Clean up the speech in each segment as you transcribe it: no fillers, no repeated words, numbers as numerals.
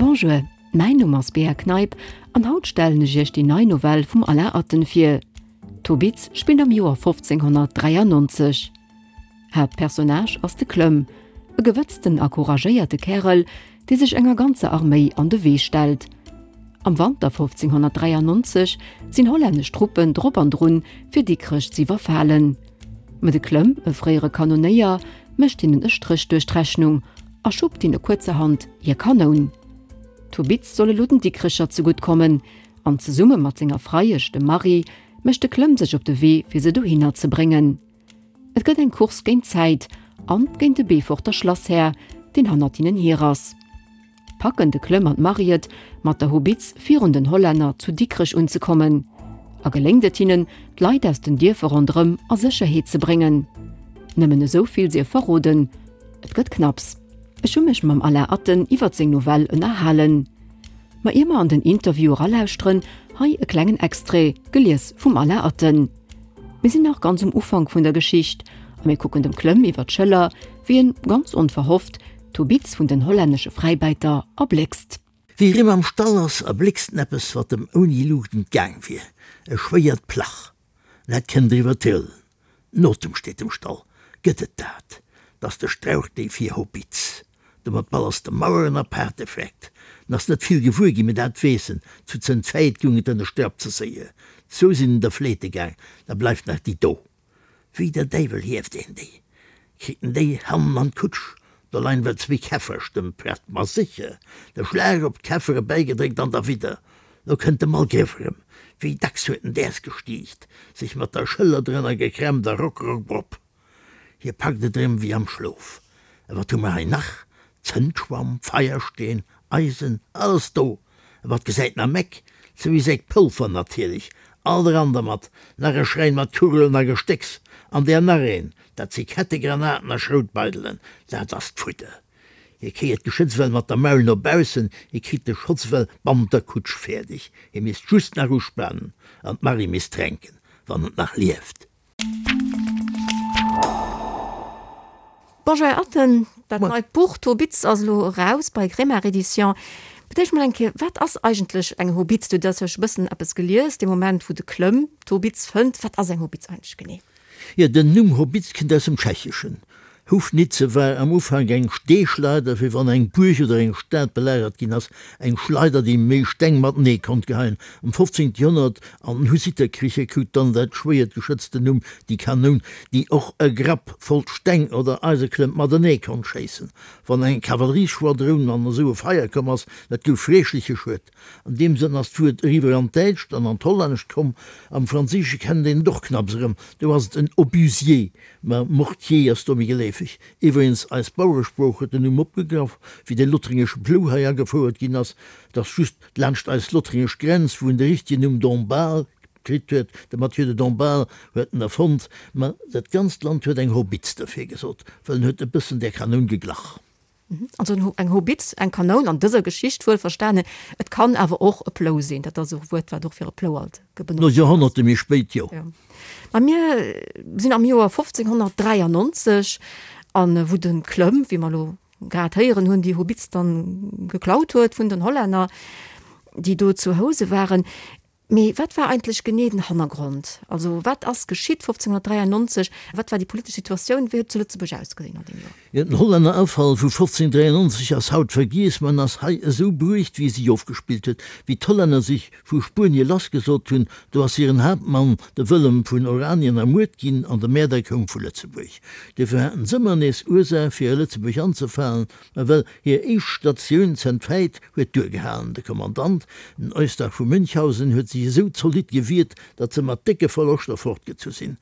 Bonjour, mäin Numm ass Bea Kneip an haut stellen ech iech déi nei Novell vum Alain Atten vir. D'Hobitz spillt am Joer 1593. Haaptpersonnage ass de Klömm, e gewëtzten a couragéierte Kärel, dee sech enger ganzer Arméi an de Wee stellt. Am Wanter 1593 sinn hollännesch Truppen drop an drun, fir Dikrech z'iwwerfalen. Ma de Klömm, e fréiere Kanonéier, mécht hinnen e Stréch duerch d'Rechnung a schuppt hinne kuerzerhand hir Kanoun. D'Hobitz soll elo den Dikrecher zegutt kommen an zesumme mat senger Freiesch, dem Marie, mécht de Klömm sech op de Wee, fir se dohinner ze bréngen. Et gëtt eng Course géint d'Zäit an géint de Beeforter Schlasshär, deen hannert hinnen hier ass. Packen de Klömm an d'Marie et, mat der Hobitz virun den Hollänner zu Dikrech unzekommen? A geléngt et hinnen, d'Leit aus den Dierfer ronderëm a Sécherheet ze bréngen? Nëmmen esou vill sief verroden, Et gëtt knapps. Ech hu mech mam Alain Atten iwwert seng Novell ënnerhalen. Ma ier mer an den Interview eralauschteren, hei e klengen Extrait, gelies vum Alain Atten. Mir sinn nach ganz um Ufank vun der Geschicht a mir kucken dem Klömm iwwer d'Schëller, wéi en, ganz onverhofft, d'Hobitz vun den hollännesche Fräibäiter erbléckst. Wéi rem am Stall ass, erbléckst en eppes, wat em ouni Luucht entgaang wier, e schwéiert Plach. Dat kënnt eriwwer d'Hëllen. Notem steet am Stall. Gëtt et dat? 't ass de Strauch déi fir Hobitz. Domat ballers de Maueren a Paarte vreckt. En ass net vill gewuer ginn, mee dat weess en, Zu Zëntfäit goung et ënner Strapp ze séier. Zwou sinn en der fleete gaang, da bleift nach déi do. Wéi der Däiwel hieft een déi? Kritt en déi hannen an d'Kutsch? Do leien well zwéi Käfferstëmp prett, ma sécher, de Schlag op d'Käffere bäigedréckt an derwidder. Lo kënnt de Malgrëff erëm. Wéi dacks huet en däers gestiicht, sech mat der Schëller drënner gekrämpt a rock, rock, brop. Hie packt et erëm wéi am Schlof. A wat hu mer hei nach? Zëndschwamm, Feiersteen, Eisen, alles do. A wat gesäit en am Eck? Zwéi Säck Polver natierlech. Alt eran dermat. Nach e Schräin mat Kugelen a Gestécks. An där nach een. Dat si Kettegranaten a Schroutbeidelen. Dat ass d'Fudder. Hie kéiert d'Geschëtz well mat der Maul no baussen, hie kritt de Schotz well bannent der Kutsch fäerdeg. Hie misst just nach uspanen an d'Marie misst tränken, wann et nach lieft. Bonjour Här Atten, dat neit Buch D'Hobitz ass elo eraus bei Grémard Éditions. Fir d'éischt mol eng Kéier, wat ass eigentlech eng Hobitz? Du hues jo scho bëssen eppes gelies, dee Moment wou de Klömm d'Hobitz fënnt. Wat ass eng Hobitz eigentlech genee? Jo, den Numm Hobitz kënnt aus dem Tschecheschen. Houfnice war am Ufank eng Steeschleider, wéi wann eng Buerg oder eng Stad belagert ginn ass, eng Schleider, déi méi Steng matenee konnt geheien. Am 15. Joerhonnert, an den Hussitterkricher, krut dann dat schwéiert Geschëtz den Numm déi Kanoun, déi och e Grapp voll Steng oder Eiseklëmp matenee konnt schéissen. Wann eng Kavallerieschwadroun an esou e Feier komm ass, dat gouf freeschleche Schued. An deem Sënn ass d'Wuert eriwwer an d'Däitscht an an d'Hollännescht komm. Am Franséische kennt een et och knapps erëm, do ass et en Obusier. Mä Mortier ass do méi geleefeg. Iwwregens, eis Baueresprooch huet den Numm opgegraff, wéi de lothringesche Plou hei agefouert ginn ass. Et ass just laanscht eis lothringesch Grenz, wou en de richtegen Numm Dombasle kritt huet. De Mathieu de Dombasle huet en erfonnt. Mä dat ganzt Land huet eng Hobitz derfir gesot, well en huet e bëssen där Kanoun geglach. Also eng Hobitz, eng Kanoun an dëser Geschicht wuel verstanen. Et kann awer och e Plou sinn. Dat ass och e Wuert, wat och fir e Plou alt benotzt ginn ass. Joerhonnerte méi spéit, jo. Mä mir sinn am Joer 1593, an wou de Klömm, wéi mer elo grad héieren hunn, déi Hobitz dann geklaut huet vun den Hollänner, déi do zu Housen waren. Mee wat war eigentlech genee den Hannergrond? Also wat ass geschitt 1593? Wat war déi politesch Situatioun? Wéi huet et zu Lëtzebuerg ausgesinn an deem Joer? Jo, den Hollännerafall vu 1593 ass haut vergiess, ma en ass hei esou bruecht, wéi e sech ofgespillt huet. Wéi d'Hollänner sech vu Spuenie lassgesot hunn, do ass hiren Haaptmann, de Wëllem vun Oranien, ermuert ginn an de Mäerder koum vu Lëtzebuerg. Duerfir haten s'ëmmer nees Ursaach, fir a Lëtzebuerg anzefalen, ma well hir éischt Statioun Zentfäit huet duergehalen. De Kommandant, den Eustach vu Münchhausen, huet sech esou zolidd gewiert, datt se mat décke Verloschter fortgezu sinn.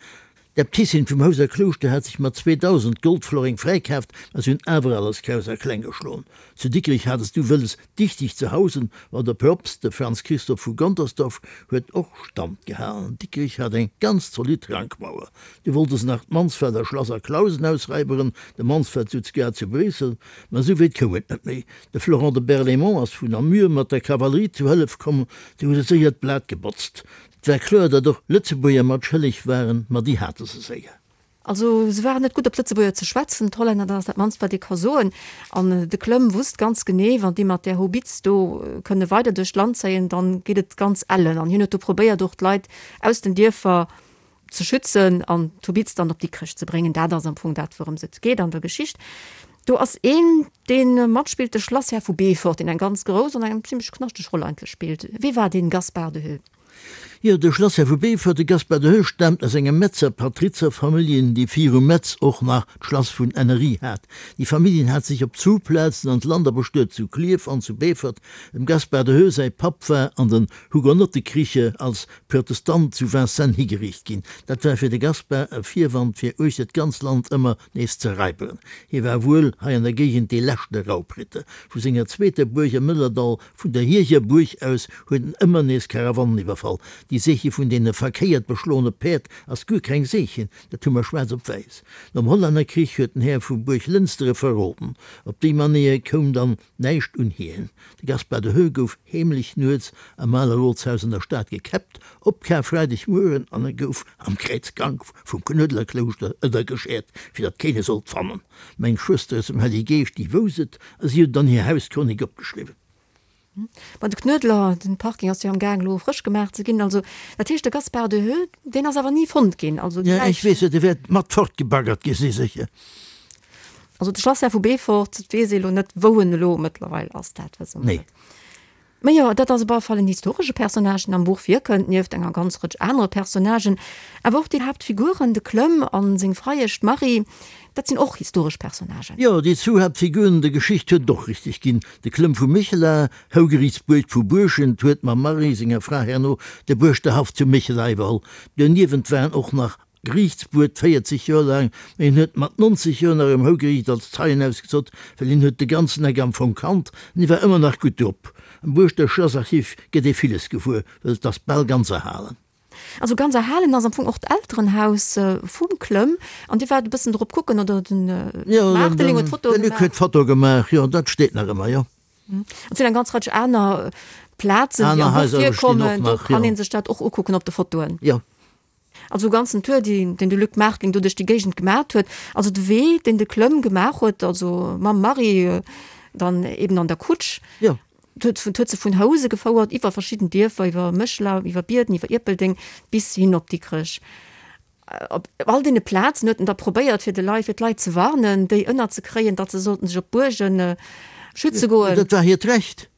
D'Äbtissin vum Houser Klouschter hat sech mat 2.000 Goldfloreng fräikaaft, ma se hunn awer alles kraus a kleng geschloen. Zu Dikrech hat es du wëlles, dichteg ze hausen, ma de Propst, de Franz Christoph vu Gontersdorf, huet och Stand gehalen. Dikrech hat eng ganz zolidd Rankmauer. Du wollte se nach d'Mansfelder Schlass a Clausen ausräiberen, de Mansfeld sutz grad zu Bréissel, ma esou wéit koum et net méi. De Florent de Berlaymont ass vun Namur mat der Kavallerie zu Hëllef komm, déi hu se séier d'Blat gebotzt. Et war kloer, datt och Lëtzebuerger mat schëlleg waren, ma déi hate se séier. Also se waren net gutt op d'Lëtzebuerger ze schwätzen, d'Hollänner, dat ass dat mannst wat ee ka soen. An de Klömm wusst ganz genee, wann déi mat där Hobitz do kënne weider duerch d'Land zéien, dann geet et ganz ellen. An hien huet do probéiert och d'Leit aus den Dierfer ze schützen an d'Hobitz dann op Dikrech ze bréngen. Dat ass am Fong dat wourëms et geet an der Geschicht. Do ass een dee matspillt, de Schlasshär vu Beefort, deen eng ganz grouss an eng zimlech knaschteg Roll eigentlech spillt. Wie war dee Gaspard de Heux? Jo, de Schlasshär vu Beefort, de Gaspard de Heux, staamt aus enger Metzer Patrizerfamilljen, déi viru Metz och nach d'Schlass vun Ennery hat. Déi Familljen hat sech op zwou Plazen an d'Land abestuet, zu Klierf an zu Beefort. Dem Gaspard de Heux säi Papp war an den Hugonottekriche als Protestant zu Vincennes higeriicht ginn. Dat war fir de Gaspard e Virwand fir uechter d'ganz Land ëmmer nees ze raiberen. Hie war wuel hei an der Géigend dee leschte Raubritter. Vu senger zweeter Buerg am Mëllerdall Vun der Hiecher Buerg aus huet en ëmmer nees Karawannen iwwerfall. Déi Seeche vun deene verkéiert beschloene Päerd ass guer keng Seechen, dat hu mer schwaarz op wäiss. Nom Hollännerkrich huet den Här vu Buerg Lënster e verroden. Op déi Manéier koum dann näischt un hien. De Gaspard de Heux gouf heemlech nuets am ale Rotshaus an der Stad gekäppt, op Karfreidegmueren, an e gouf am Kräizgank vum Knuedlerklouschter ënnergeschäert, fir datt keen e sollt fannen. Meng Schwëster aus dem Hellige Geescht, déi wouss et, a si huet et an hir Hauschronik opgeschriwwen. Ma de Knuedler, den Parking ass jo am Gaang elo frësch gemaach ze ginn. Also dat heescht de Gaspard de Heux, deen ass awer ni fonnt ginn. Also déi Läich. Ech weess et, e wäert mat fortgebaggert gi si sécher. Also de Schlasshär vu Beefort, et weess ee elo net wou en elo mëttlerweil ass, dat wësse mer net. Mä jo, dat ass op alle Fall en historesche Personnage, deen am Buch virkënnt, nieft enger ganz Rëtsch anere Personnagen. Awer och déi Haaptfiguren, de Klömm a seng Freiesch, d'Marie, dat sinn och historesch Personnagen. Jo, déi zwou Haaptfiguren der Geschicht huet et och richteg ginn. De Klömm vu Méchela, Hougeriichtsbuerg vu Buerschent, huet mam Marie, senger Fra, herno de Buerschterhaff zu Méchela iwwerholl. Doniewent waren och nach Geriichtsbuet 40 Joer laang, mee en huet mat 90 Joer nach um Hougeriicht als Zeien ausgesot, well hien huet de ganzen Eck am Fong kannt an hie war ëmmer nach gutt drop. Am Buerschter Schlassarchiv gëtt ee villes gewuer, well et ass bal ganz erhalen. Also ganz erhalen ass am Fong och d'Elterenhaus vum Klömm an Dir waart e bëssen drop kucken, oder den Maarteling huet d'Fotoe gemaach? De Luc huet d'Foto gemaach, jo, dat steet nach ëmmer, jo. Et sinn eng ganz Rëtsch aner Plazen, déi am Buch virkommen, do kann ee sech dat och ukucken op de Fotoen. Jo. Also e ganzen Tour, déi, deen de Luc Martling do duerch déi Géigend gemat huet. Also de Wee, deen de Klömm gemaach huet, also mam Marie dann eben an der Kutsch. Jo. Huet, huet se vun Housen gefouert, iwwer verschidden Dierfer, iwwer Méchela, iwwer Bierden, iwwer Ierpeldeng bis hin op Dikrech. Op all deene Plazen huet en da probéiert, fir de Leit, fir d'Leit ze warnen, déi ënnerzekréien, datt se sollten sech op d'Buergen schütze goen. Dat war hiert Recht.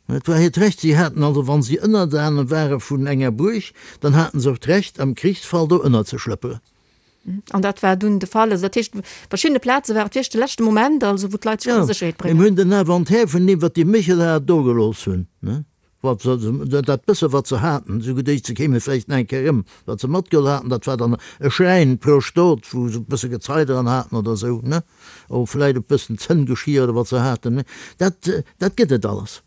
Et war hiert Recht. Si haten also, wa si Ënnerdane ware vun enger Buerg, dann haten se och d'Recht, am Krichsfall do ënnerzeschlëpperen. An dat war dunn de Fall. Also dat heescht, op verschiddene Plaze war et wierklech de leschte Moment, also wou d'Leit sech konnte Sécherheet bréngen. Jo, mir hunn den Inventaire vun deem, wat déi Méchelaer dogelooss hunn, ne, wat se, dat bësse wat se haten, esou geduecht, se kéime vläicht nach eng Kéier erëm, wat se matgeholl haten, dat war dann e Schräin pro Stot, wou se e bësse Gezei dran haten oder esou, ne. Oh, vläit e bëssen Zënngeschir oder wat se haten, mee dat, dat gëtt et alles.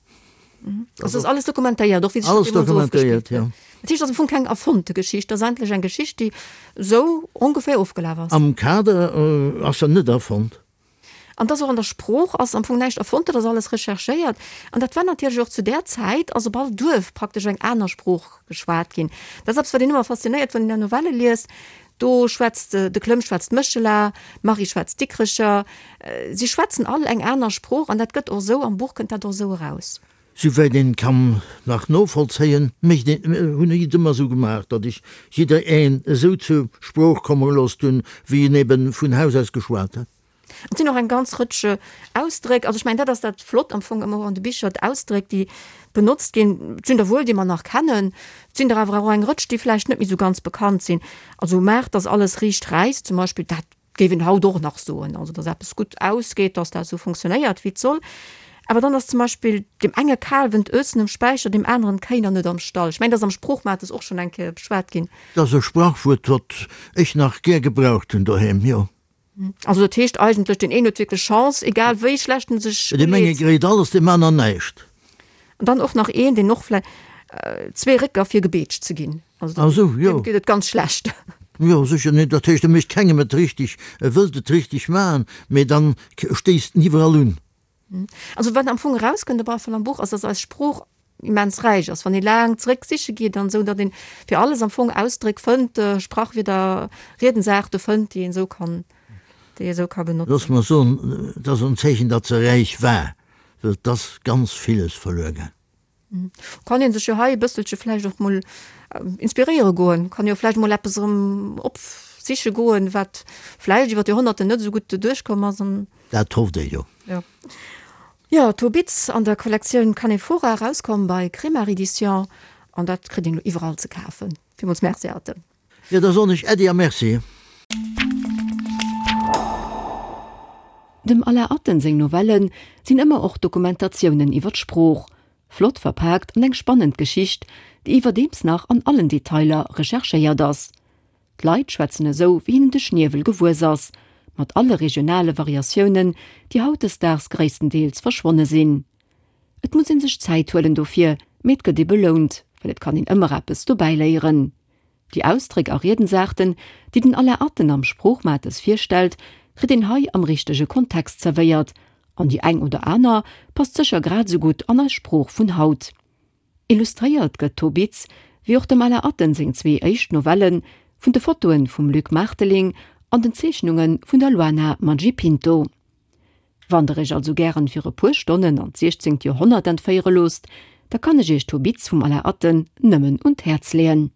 Also ass alles dokumentéiert, och wéi sech dat deemools ofgespillt huet. Dat heescht, et ass am Fong keng erfonnte Geschicht, et ass eigentlech eng Geschicht, déi esou ongeféier ofgelaf ass. Am Kader ass se net erfonnt. An et ass och an der Sprooch ass am Fong näischt erfonnt, dat ass alles recherchéiert. An dat war natierlech och zu där Zäit ass op all Duerf praktesch eng aner Sprooch geschwat ginn. Dat ass eppes, wat een ëmmer faszinéiert, wann een där Novelle liest. Do schwätzt de Klömm schwätzt Méchela, d'Marie schwätzt Dikrecher. Si schwätzen all eng aner Sprooch an dat gëtt och esou, am Buch kënnt dat och esou eraus. Souwäit een kann nach novollzéien, mécht een, hunn ech et ëmmer esou gemaach, datt ech jidder een esou zur Sprooch komme gelooss hunn, wéi en eben vun Haus aus geschwat huet. Et sinn och eng ganz Rëtsch Ausdréck, also ech mengen, dat ass dat Flott am Fong ëmmer och an de Bicher, d'Ausdréck, déi benotzt ginn. Et sinn der wuel, déi mer nach kennen, et sinn der awer och eng Rëtsch, déi vläicht net méi esou ganz bekannt sinn. Also maach, dass alles riicht räisst zum Beispill, dat géif een haut och nach soen, also dass eppes gutt ausgeet, dass dat esou funktionéiert, wéi et soll. Awer dann ass zum Beispill deem enge Kalwen d'Ösen um Späicher, deem aneren d'Kéiner net am Stall. Ech mengen, dat ass am Sproochmates och schonn eng Kéier beschwat ginn. Dat ass e Sprachwuert, wat ech nach gär gebraucht hunn doheem, jo. Also dat heescht eigentlech, deen een huet wierklech Chance, egal wéi schlecht en sech Deem enge uleet. gréit alles, deem aner näischt. An dann och nach een, deen och vläi zwee Récker fir gebeetscht ze ginn. Also Ah sou, jo. deem geet et ganz schlecht. Jo, sécher. Nee, dat heescht, e mécht kengem et richteg, e wëllt et richteg maachen, mee dann stéisst en iwwerall un. Also wat am Fong erauskënnt op alle Fall am Buch ass, dass eis Sprooch. immens räich ass, wann ee laang zréck siche geet an esou, datt een fir alles am Fong Ausdréck fënnt, Sprachwierder, Riedensaarte fënnt, déi een esou kann, déi ee esou ka benotzen. Looss mer soen, et ass en Zeechen, datt se räich war, well et ass ganz villes verluer gaang. Kann een sech jo hei e bësselche vläicht och mol inspiréiere goen, kann jo vläicht mol eppes erëm opsiche goen, wat vläicht iwwer d'Joerhonnerten net esou gutt duerchkomm ass an. Dat hofft ee jo. Jo. Jo, Tobitz an der Kollektioun Canephora, erauskomm bei Kremart Edition, an dat kritt een elo iwwerall ze kafen. Villmools Merci, Arte. Jo, da soen ech Äddi a Merci. Dem Alain Atten seng Novellen sinn ëmmer och Dokumentatiounen iwwer d'Sprooch, flott verpaakt an eng spannend Geschicht, déi iwwerdeems nach an allen Detailer recherchéiert ass. D'Leit schwätzen esou, wéi hinnen de Schniewel gewuess ass, mat alle regionale Variatiounen, déi hautdesdaags gréisstendeels verschwonne sinn. Et muss ee sech Zäit huelen dofir, mee et gëtt ee belount, well et kann een ëmmer eppes dobäiléieren. Déi Ausdréck a Riedensaarten, déi den Alain Atten am Sproochmates virstellt, kritt een hei am richtege Kontext zerwéiert, an déi eng oder aner passt sécher grad esou gutt an eis Sprooch vun haut. Illustréiert gëtt Tobitz, wéi och dem Alain Atten seng zwee éischt Novellen, vun de Fotoe vum Luc Maarteling an den Zeechnunge vun der Luana Maggipinto. Wann der iech also gären fir e puer Stonnen an d'siechzéngt Joerhonnert entféiere loosst, da kann ech iech Tobitz vum Alain Atten nëmmen un d'Häerz leeën.